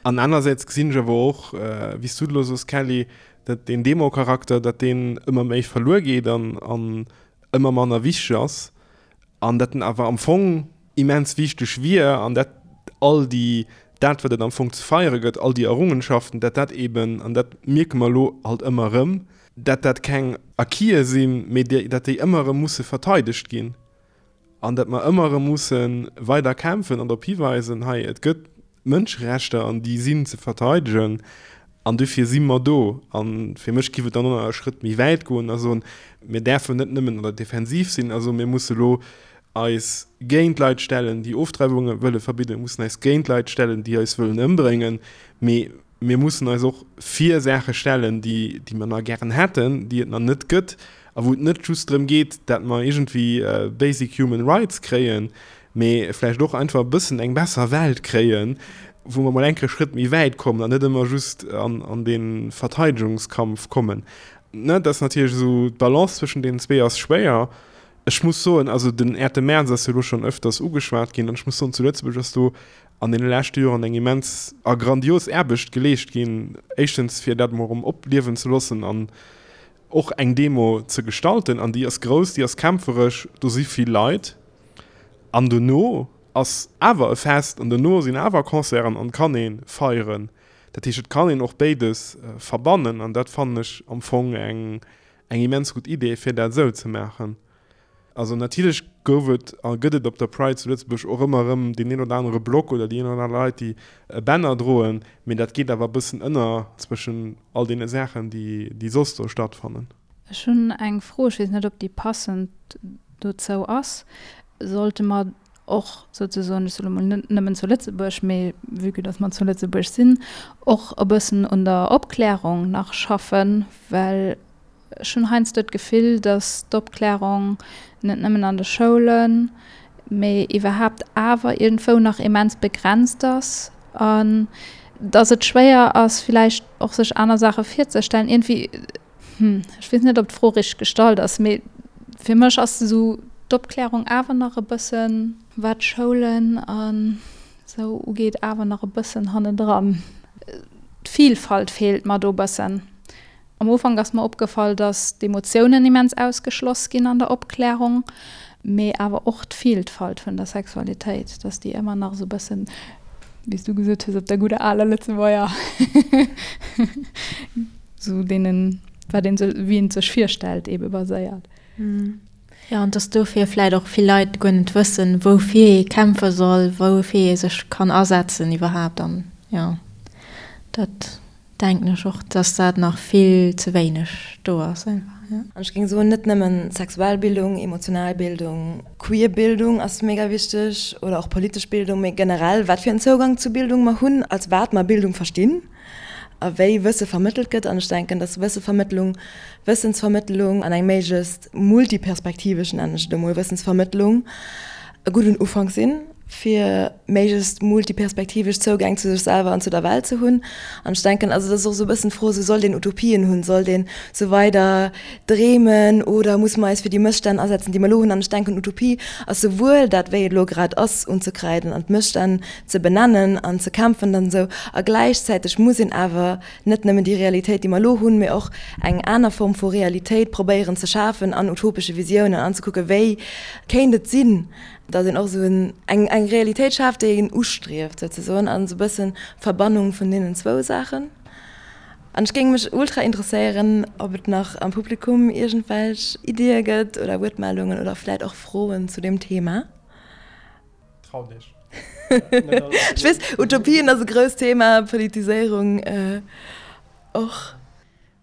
An anersäits gesinn ech awer och, wéi s du et elo soos Kelly, datt deen Demo-Charakter, datt deen ëmmer méi verluer geet an an ëmmer manner wichteg ass an datt en awer am Fong immens wichteg wier an dat all déi, dat wat et am Fong ze feiere gëtt, all déi Errungenschaften, datt dat eben, an dat mierke mer elo halt ëmmer erëm, datt dat keng Acquise sinn, mee datt déi ëmmer erëm musse verteidegt ginn. An datt mer ëmmer erëm musse weider kämpfen an drop hiweisen, hei, et gëtt Mënscherechter an déi sinn ze verteidegen an dofir si mer do. A fir mech giff et dann och nach e Schrëtt méi wäit goen a soen, mir däerfen net nëmmen an der Defensiv sinn a soen, mir musse elo eis géint Leit stellen, déi Ofdreiwunge wëlle verbidden, mir mussen eis géint Leit stellen, déi eis wëllen ëmbréngen, mee mir mussen eis och fir Saache stellen, déi, déi mer nach gären hätten, déi et nach net gëtt a wou et net just drëm geet, dat mer iergendwéi basic human rights kréien, mee vläicht och einfach e bëssen eng besser Welt kréien, wou mer mol eng Kéier e Schrëtt méi wäit kommen an net ëmmer just an, an dee Verteidegungskampf kommen. Ne, dat ass natierlech esou, d'Balance zwëschen deenen zwee ass schwéier. Ech muss soen, also den 8. Mäerz ass jo elo schonn ëfters ugeschwat ginn an ech muss soen, zu Lëtzebuerg ass do an deene leschte Joren eng immens a grandios Aarbecht geleescht ginn, éischtens fir dat emol erëm opliewen ze loossen an och eng Demo ze gestalten, an déi ass grouss, déi ass kämpferesch, do si vill Leit, an dono ass awer e Fest an dono sinn awer Concerten an kann ee feieren. Dat heescht, et kann een och béides verbannen an dat fannen ech am Fong eng immens gutt Idee, fir dat esou ze maachen. Also natierlech gouf et a gëtt et op der Pride zu Lëtzebuerg och ëmmer erëm deen een oder anere Block oder déi een oder aner Leit, déi e Banner droen, mee dat geet awer e bëssen ënner zwëschen all deene Saachen, déi, déi soss do stattfannen. Ech hunn eng Fro, ech weess net, ob déi passend dozou ass. Sollte mer och souzesoen, ech soe lo mol net nëmmen zu Lëtzebuerg, mee vue que dass mer zu Lëtzebuerg sinn, och e bëssen un der Opklärung nach schaffen, well Ech hunn heiansdo d'Gefill, datt d'Opklärung net nëmmen an de Schoulen, mee iwwerhaapt awer iergendwou nach immens begrenzt ass an datt et schwéier ass, villäicht och sech aner Saache virzestellen. Iergendwéi, hm, ech weess net, ob d'Fro richteg gestallt ass, mee fir mech ass esou d'Opklärung awer nach e bëssen, wat d'Schoulen an esou ugeet, awer nach e bëssen hannendran. D'Vilfalt feelt mer do e bëssen. Am Ufank ass mer opgefall, dass d'Emotiounen immens ausgeschloss ginn an der Opklärung, mee awer och d'Vilfalt vun der Sexualitéit, dass déi ëmmer nach esou e bëssen, wéi s du gesot hues, op der gudder aler Lëtzebuerger, esou deenen, wat een sech, wéi een et sech virstellt, eebe baséiert. Jo, an dass dofir vläit och vill Leit guer net wëssen, woufir ee kämpfe soll, woufir ee sech kann asetzen iwwerhaapt. An jo, dat Denken ech och, dass dat nach vill ze wéineg do ass einfach, jo. An ech géing soen, net nëmmen sexuell Bildung, emotional Bildung, queer Bildung ass mega wichteg oder och politesch Bildung, mee generell wat fir en Zougang zu Bildung mer hunn, als wat mer Bildung verstinn a wéi Wësse vermëttelt gëtt. An ech denken, dass Wëssevermëttlung, Wëssensvermëttlung an eng méiglechst multiperspektivesch, nennen ech et emol, Wëssensvermëttlung e gudden Ufank sinn. fir méiglechst multiperspektivesch Zougäng zu sech selwer an zu der Welt ze hunn. An ech denken, also dat ass och esou e bëssen d'Fro, esou sollt een Utopien hunn, sollt een esou weider dreemen oder musse mer eis fir déi Mësstänn asetzen, déi mer elo hunn? An ech denken, Utopie ass souwuel dat, wéi et elo grad ass, unzekreiden an d'Mësstänn ze benennen an ze kämpfen dann esou, a gläichzäiteg muss een awer net nëmmen déi Realitéit, déi mer elo hunn, mee och eng aner Form vu Realitéit probéieren ze schafen an utopesche Visiounen an ze kucken, wéi kéint et sinn, datt een och esou eng eng Realitéit schaaft, déi een ustrieft souzesoen, an esou e bëssen d'Verbannung vun deenen zwou Saachen. An ech géing mech ultra interesséieren, ob et nach am Publikum iergendwelch Iddie gëtt oder Wuertmeldungen oder vläit och Froen zu deem Thema. Traut iech. Ech weess, Utopien ass e grousst Thema, Politiséierung och.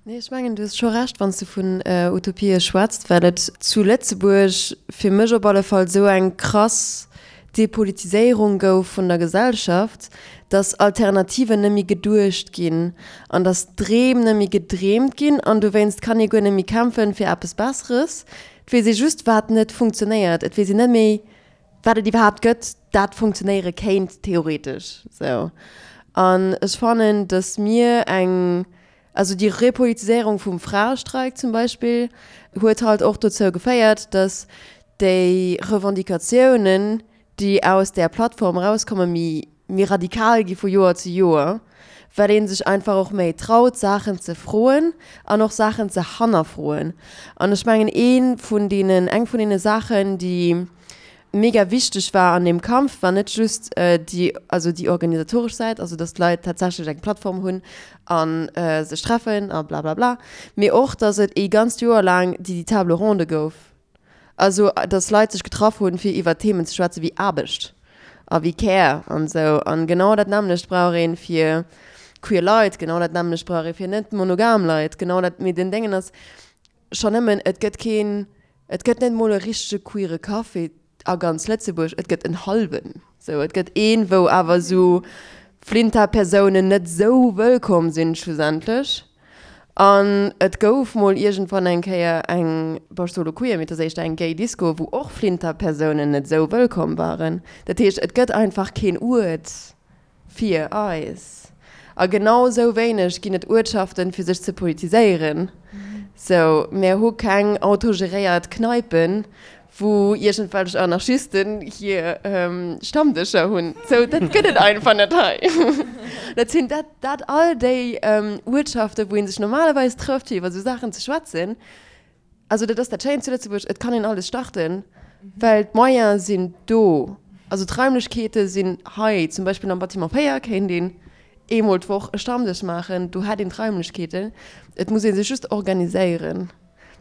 Nee, ech mengen, du hues scho Recht, wann s du vun Utopië schwätzt, well et zu Lëtzebuerg fir mech op alle Fall esou eng krass Depolitiséierung gouf vun der Gesellschaft, dass Alternativen net méi geduecht ginn an dass Dreem net méi gedreemt ginn an dowéinst kann ee guer net méi kämpfen fir eppes Besseres. Et weess ee just, wat net funktionéiert. Et weess een net méi, wat et iwwerhaapt gëtt, dat funktionéiere kéint theoretesch. Sou. An ech fannen, dass mir eng Also déi Repolitiséierung vum Fraestreik zum Beispill huet halt och dozou geféiert, datt déi Revendicatiounen, déi aus där Plattform erauskommen, méi méi radikal gi vu Joer zu Joer, well ee sech einfach och méi traut, Saachen ze froen an och Saachen ze hannerfroen. An ech mengen, ee vun deenen, eng vun deene Saachen, déi mega wichteg war an deem Kampf, war net just déi, also déi organisatoresch Säit, also dass d'Leit tatsächlech eng Plattform hunn a sech treffen a blablabla, mee och, dass et ee ganzt Joer laang déi Table ronde gouf, also dass Leit sech getraff hunn, fir iwwer Themen ze schwätzen wéi Aarbecht a wéi Care an esou. An genau dat nämmlecht brauch ee fir queer Leit, genau dat nämmlecht brauch ee fir net monogam Leit, genau dat, mee den Déngen ass schonn nëmmen, et gëtt keen Et gëtt net mol e richtege queere Café a ganz Lëtzebuerg, et gëtt en hallwen. Sou, et gëtt een, wou awer sou Flinta-Persounen net sou wëllkomm sinn schlussendlech. An et gouf mol iergendwann eng Kéier eng, bon, ech soe lo queer, mee et ass éischter eng gay Disco, wou och Flinta-Persounen net sou wëllkomm waren. Dat heescht, et gëtt einfach keen Uert. Fir eis. A genau esou wéineg ginn et Uertschaften, fir sech ze politiséieren. Sou, mär hu keng autogeréiert Kneipen, wou iergendwelch Anarchisten hir Stammdëscher hunn. Sou, dat gëtt et einfach net hei. Dat sinn dat, dat all déi Uertschaften, wou ee sech normalerweis trëfft, fir iwwer esou Saachen ze schwätzen. Also dat ass dat Schéint zu Lëtzebuerg, et kann een alles starten, well d'Moyene sinn do. Also d'Raimlechkeete sinn hei. Zum Beispill am Bâtiment 4 kéint een eemol d'Woch e Stammdësch maachen, do hätt een d'Raimlechkeeten. Et muss ee sech just organiséieren.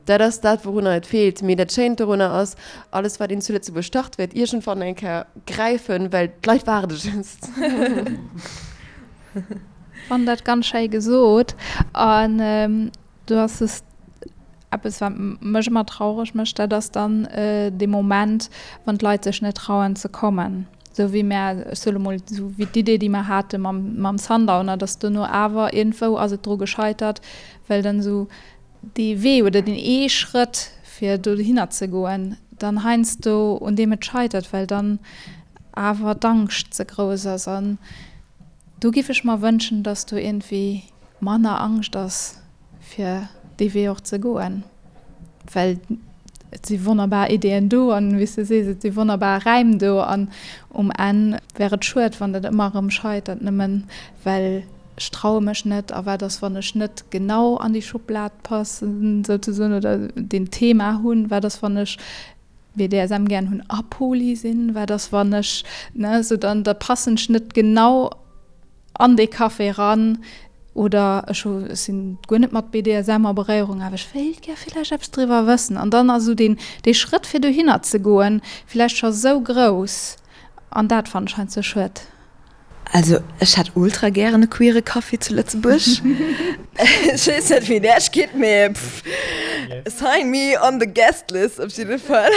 Dat ass dat, wourunner et feelt. Mee dat Schéint dorunner ass, alles wat een zu Lëtzebuerg start, wäert iergendwann eng Kéier gräifen, well d'Leit waarde just. Fannen dat ganz schéi gesot. An Do ass es eppes, wat mech ëmmer traureg mécht, dat ass dann dee Moment, wann d'Leit sech net trauen ze kommen. Esou wéi mär, ech soe lo mol, esou wéi d'Idee, déi mer hate mam, mam Sundowner, datt dono awer iergendwou ass et dru gescheitert, well dann esou dee Wee oder deen ee Schrëtt, fir dohinner ze goen, dann heiansdo un deem et scheitert, well dann awer d'Angscht ze grouss ass. An do giff ech mer wënschen, datt do iergendwéi manner Angscht ass fir dee Wee och ze goen, well et si wonnerbar Ideeën do an, wéi s de sees, et si wonnerbar Räim do an um Enn wär et schued, wann dat ëmmer erëm scheitert, nëmmen well ech traue mech net a wat ass, wann ech net genau an déi Schublad passen souzesoen oder deen Thema hunn, wat ass, wann ech BDSM gären hunn a Poly sinn, wat ass, wann ech, ne, sou dann da passen ech net genau an dee Café eran oder ech hu ech sinn guer net mat BDSM a Beréierung, awer ech wéilt gär villäicht eppes driwwer wëssen. An dann ass esou deen dee Schrëtt fir dohinner ze goen villäicht scho sou grouss an dat fannen ech heiansdo schued. Also ech hätt ultra gären e queere Café zu Lëtzebuerg. Ech weess net wéi et Äech geet, mee pff, sign me on the guest list op jidde Fall.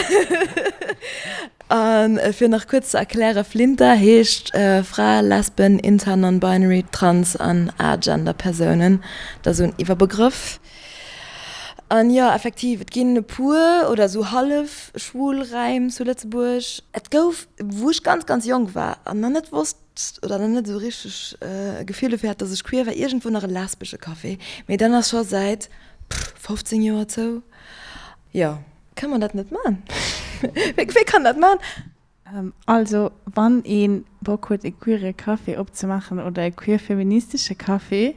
A fir nach kuerz ze erklären, Flinta heescht Fra, Lesben, Inter, Non-Binary, Trans an Agender Persounen. Dat ass esou en Iwwerbegrëff. An jo, effektiv, et ginn e puer oder esou hallef schwul Räim zu Lëtzebuerg. Et gouf, wou ech ganz, ganz jonk war an nach net wosst oder nach net esou richteg e Gefill dofir hat, dass ech queer war, iergendwou nach e lesbesche Café. Mee deen ass scho säit 15 Joer zou. Jo. Kann man dat net man? Wee kann dat man? Also wann ee Bock huet e queere Café opzemaachen oder e queer-feministesche Café,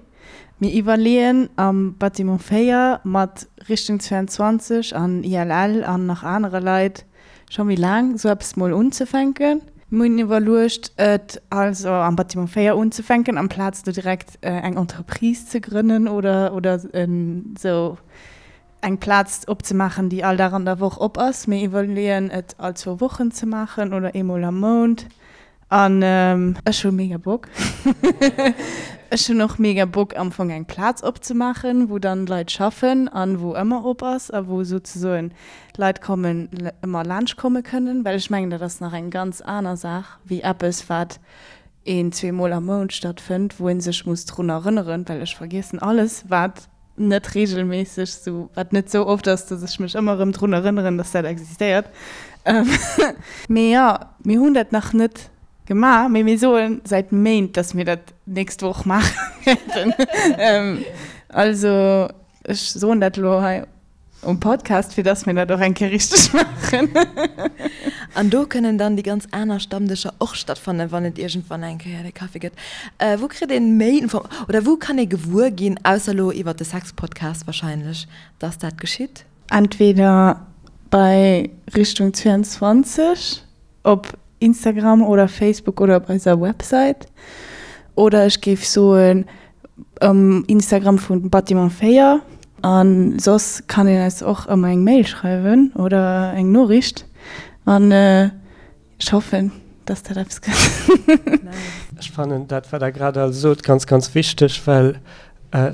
mir iwwerleeën am Bâtiment 4 mat Richtung 22 an ILL an nach anere Leit scho méi laang esou eppes mol unzefänken. Mir hunn iwwerluecht et also am Bâtiment 4 unzefänken amplaz do direkt eng Entreprise ze grënnen oder oder esou eng Plaz opzemaachen, déi all Dag an der Woch op ass. Mir iwwerleeën et all zwou Wochen ze maachen oder eemol am Mount. An ech hu mega Bock. Ech hunn och mega Bock am Fong eng Plaz opzemaachen, wou dann Leit schaffen an wou ëmmer op ass a wou souzesoen Leit kommen, ëmmer laanscht komme kënnen. Well ech mengen, dat ass nach eng ganz aner Saach wéi eppes, wat een, zweemol am Mount stattfënnt, wou ee sech muss drun erënneren, well ech vergiessen alles, wat net regelméisseg sou, wat net sou oft ass, dass ech mech ëmmer erëm drun erënneren, dass dat existéiert. Mee jo, mir hunn dat nach net gemaach, mee mir soe säit Méint, dass mir dat d'nächst Woch maache wäerten. Also ech soen dat elo hei Um Podcast, fir dass mir dat och eng Kéier richteg maachen. An do kënnen dann déi ganz aner Stammdëscher och stattfannen, wann et iergendwann eng Kéier de Café gëtt. Wou kritt een méi Info oder wou kann ee gewuer ginn, ausser elo iwwert de Sexpodcast wahrscheinlech, dass dat geschitt? Entweder bei Richtung 22 op Instagram oder Facebook oder op eiser Website oder ech géif soen Um Instagram vun Bâtiment 4. An soss kann een eis och ëmmer eng Mail schreiwen oder eng Noriicht. An ech hoffen, dass dat eppes gëtt. Ech fannen dat, wat Der grad all sot, ganz, ganz wichteg, well,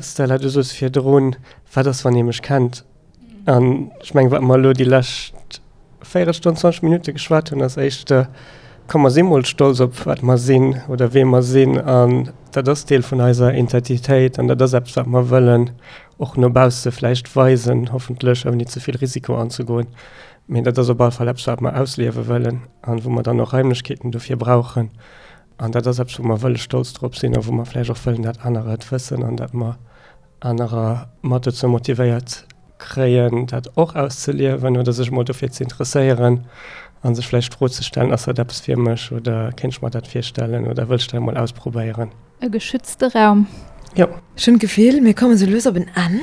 Stella, du soos virdrun, Wat ass, wann ee mech kennt? An ech mengen, wat mer elo déi lescht Véierelstonn, 20 Minutte geschwat hunn, ass éischter, komm mer si mol stolz op wat mer sinn oder wee mer sinn. An dat ass Deel vun eiser Identitéit an dat ass eppes, wat mer wëllen och no bausse vläicht weisen, hoffentlech ouni ze vill Risiko anzegoen. Mee dat ass op alle Fall eppes, wat mer ausliewe wëllen an wou mer dann och Raimlechkeeten dofir brauchen. An dat ass eppes, wou mer wëlle stolz drop sinn a wou mer vläicht och wëllen, dat anerer et wëssen an dat mer anerer mat dozou motivéiert kréien, dat och auszeliewen oder sech emol dofir ze interesséieren a sech vläicht d'Fro ze stellen, Ass dat eppes fir mech oder kéint ech mer dat virstellen oder wëll ech dat emol ausprobéieren? E geschützte Raum. Jo. Ech hunn d'Gefill, mir kommen sou lues op en Enn.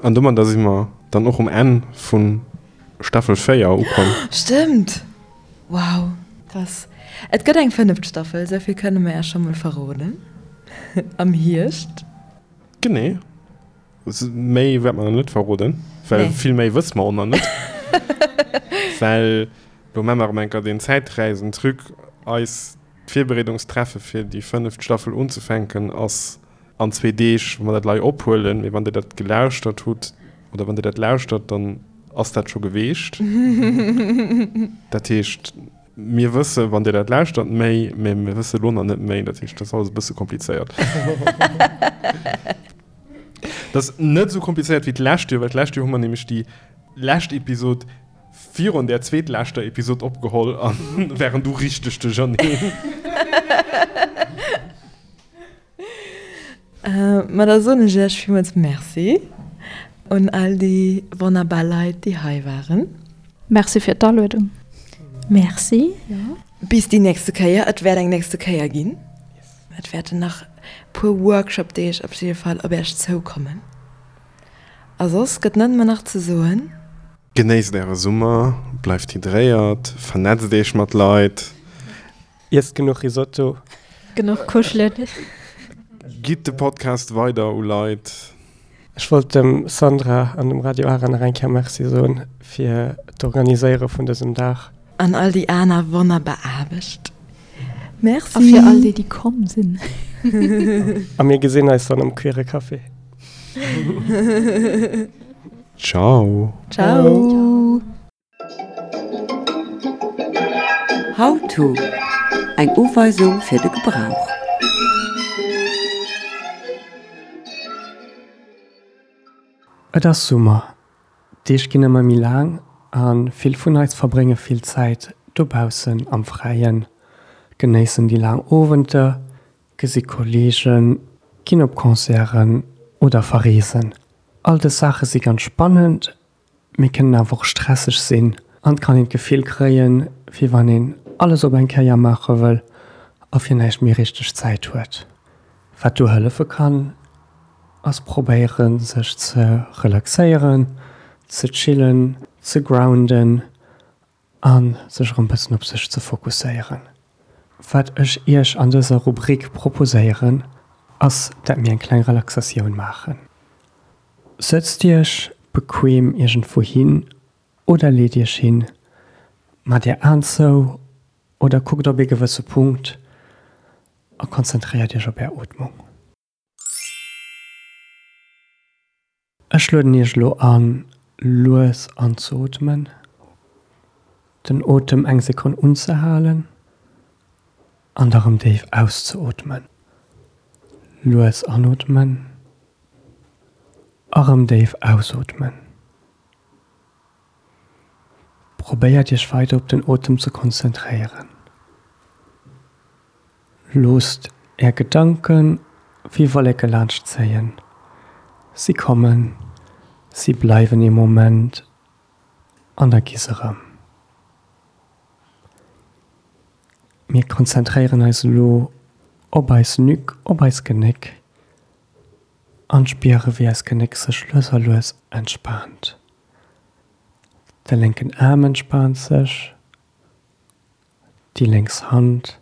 An domadder si mer dann och um Enn vu Staffel 4 ukomm. Stëmmt! Wow, krass. Et gëtt eng fënneft Staffel, esou vill kënne mer Iech scho mol verroden, am Hierscht. Genee. Méi wäerte mer nach net verroden, well vill méi wësse mer och nach net. Well lo maache mer erëm eng Kéier deen Zäitreisen-Truc, eis d'Virbereedungstreffe fir déi fënneft Staffel unzefänken ass an zwee Deeg, wa mer dat lei ophuelen. Mee wann Dir dat gelauschtert hutt oder wann Dir dat lauschtert, dann ass dat scho geweecht. Dat heescht, mir wësse wann Dir dat lauschtert méi, mee mir wësse lo nach net méi. Dat heescht, dat ass alles e bësse komplizéiert. Dat ass net esou komplizéiert wéi d'lescht Joer, well d'lescht Joer hu mer nämlech déi lescht Episod virun där zweetleschter Episod opgeholl a waren du richteg duercherneen. Ma da soen ech Iech villmools Merci un all déi wonnerbar Leit, déi hei waren. Merci fir d'Aluedung. Merci, jo. Bis déi nächste Kéier. Et wäert eng nächste Kéier ginn. Et wäerten nach puer Workshop-Deeg op jidde Fall op Iech zoukommen. A soss gëtt net mer nach ze soen. Genéisst Äre Summer, bleift hydréiert, vernetzt Iech mat Leit. Iesst genuch Risotto. Genuch kuschelen. Gitt de Podcast weider u Leit. Ech wollt dem Sandra an dem Radio Ara nach eng Kéier Merci soen fir d'Organiséiere vun dësem Dag. An all déi aner wonnerbar Aarbecht. Merci. A fir all déi, déi komm sinn. A mir gesinn eis dann am Queere Café. Ciao. Ciao. How to, Eng Uweisung fir de Gebrauch. Et ass Summer, d'Deeg ginn ëmmer méi laang a vill vun eis verbrénge vill Zäit dobaussen am Fräien, genéissen déi laang Owenter, gesi Kolleegen, ginn op Concerten oder verreesen. All dës Saache si ganz spannend, Mee kënnen awer och stresseg sinn an et kann een d'Gefill kréien, wéi wann een alles op eng Kéier maache wëll a fir näischt méi richteg Zäit huet. Wat do hëllefe kann, ass probéieren, sech ze relaxéieren, ze chillen, ze grounden a sech erëm bëssen op sech ze fokusséieren. Wat ech iech an dëser Rubrik proposéieren, ass dat mir eng kleng Relaxatioun maachen. Sëtzt iech bequem iergendwou hin oder leet iech hin, maacht är Aen zou. Oder kuckt op ee gewësse Punkt a konzentréiert Iech op Är Ootmung. Ech lueden Iech elo an, lues anzeootmen, den Otem eng Sekonn unzehalen an da rëm déif auszeootmen. Lues anootmen a rëm déif ausootmen. Probéiert Iech weider op den Otem ze konzentréieren. Loosst Är Gedanke wéi Wolleke laanscht zéien. Si kommen, si bleiwen ee Moment an da gi se erëm. Mir konzentréieren eis elo op eis Nuque, op eis Genéck an spiere wéi eis Genéck sech lues a lues entspaant. De lénken Aarm entspaant sech, déi lénks Hand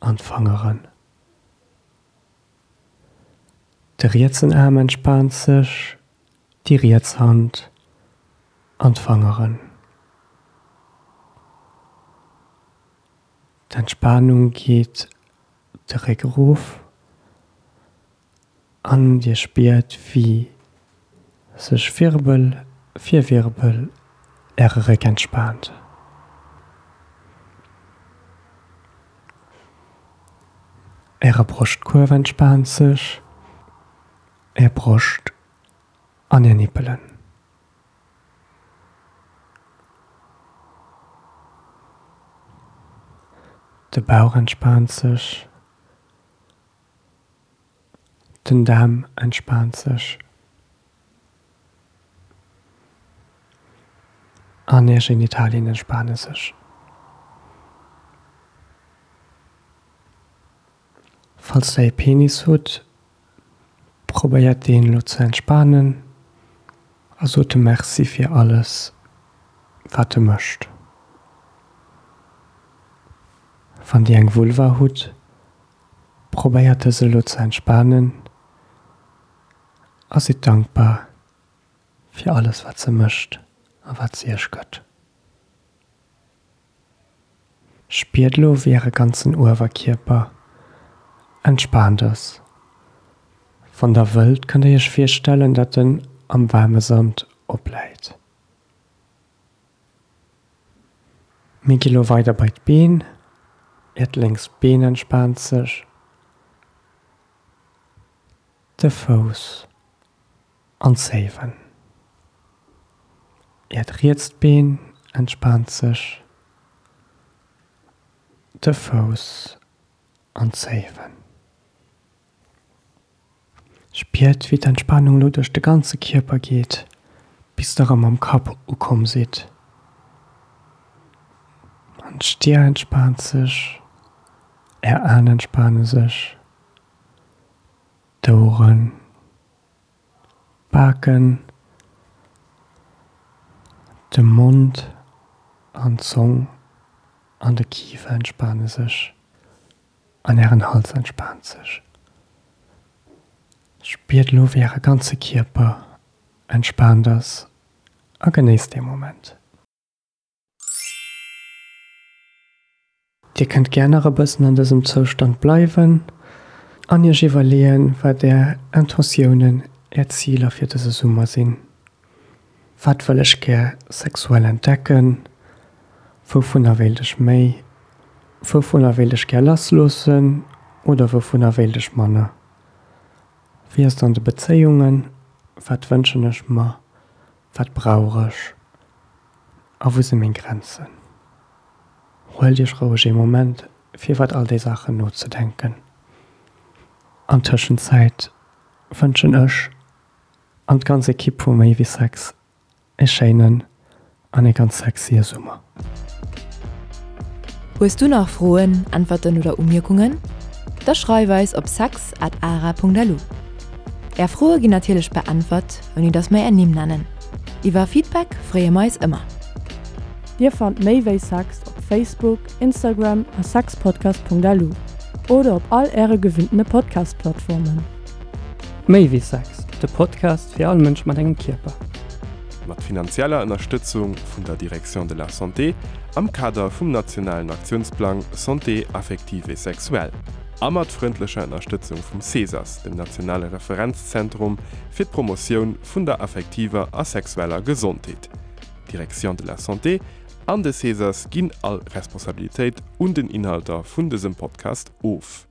an d'Fangeren. De rietsen Aarm entspaant sech, déi riets Hand an d'Fangeren. D'Entspanung geet de Réck erof an dir spiert wéi sech Wirbel fir Wirbel äre Réck entspaant. Äre Broschtkuerf entspaant sech, är Broscht an är Nippelen. De Bauch entspaant sech. Den Daarm entspaant sech. An är Genitalien entspane sech. Falls der ee Penis hutt, probéiert deen elo ze entspanen a sot em Merci fir alles wat e mécht. Wann dir eng Vulva hutt, probéiert dës elo ze entspanen a sidd dankbar fir alles wat se mécht a wat se iech gëtt. Spiert elo wéi äre ganzen Uewerkierper entspaant ass. Wann der wëllt kënnt der iech virstellen dat en am waarme Sand opläit. Mir gi lo weider bei d'Been. Äert lénkst Been entspaant sech, de Fouss an d'Zéiwen. Äert rietst Been entspaant sech, de Fouss an d'Zéiwen. Spiert wéi d'Entspanung lo duerch de ganze Kierper geet, bis der erëm am Kapp ukomm sidd. An d'Stier entspaant sech, är Aen entspane sech, d'Oueren, d'Baken, de Mond an d'Zong an de Kifer entspane sech. An ären Hals entspaant sech. Spiert elo wéi äre ganze Kierper entspaant ass a genéisst dee Moment. Dir kënnt gär nach e bëssen an dësem Zoustand bleiwen an iech iwwerleeën, wat är Intentiounen, är Ziler fir dëse Summer sinn. Wat wëll ech gär sexuell entdecken? Wouvunner wéilt ech méi? Wouvunner wéilt ech gär lassloossen oder wouvunner wéilt ech manner? Wéi ass et an de Bezéiungen? Wat wënschen ech mer? Wat brauch ech? A wou si meng Grenzen? Huelt iech roueg ee Moment fir iwwert all déi Saachen nozedenken. An Tëschenzäit wënschen ech An d'ganz Ekipp vu Méi wéi Sex e schéinen an e ganz sexye Summer. Hues du nach Froen, Äntwerten oder Umierkungen? Da schreif eis op sex at ara.lu. Är Froe ginn natierlech beäntwert, ouni dass mer är Nimm nennen. Iwwer Feedback freeë mer eis ëmmer. Dir fannt Méi wéi Sex op Facebook, Instagram a sexpodcast.lu oder op all äre gewinntene Podcast-Plattformen. Méi wéi Sex, de Podcast fir all Mënsch mat engem Kierper. Mat finanzieller Ënnerstëtzung vun der Direction de la Santé. am Kader vum nationalen Aktiounsplang Santé affective et sexuelle a mat frëndlecher Ënnerstëtzung vum CESAS, dem nationale Referenzzentrum fir d'Promotioun vun der affektiver a sexueller Gesondheet. D'Direction de la Santé an de CESAS ginn all Responsabilitéit un den Inhalter vun dësem Podcast of.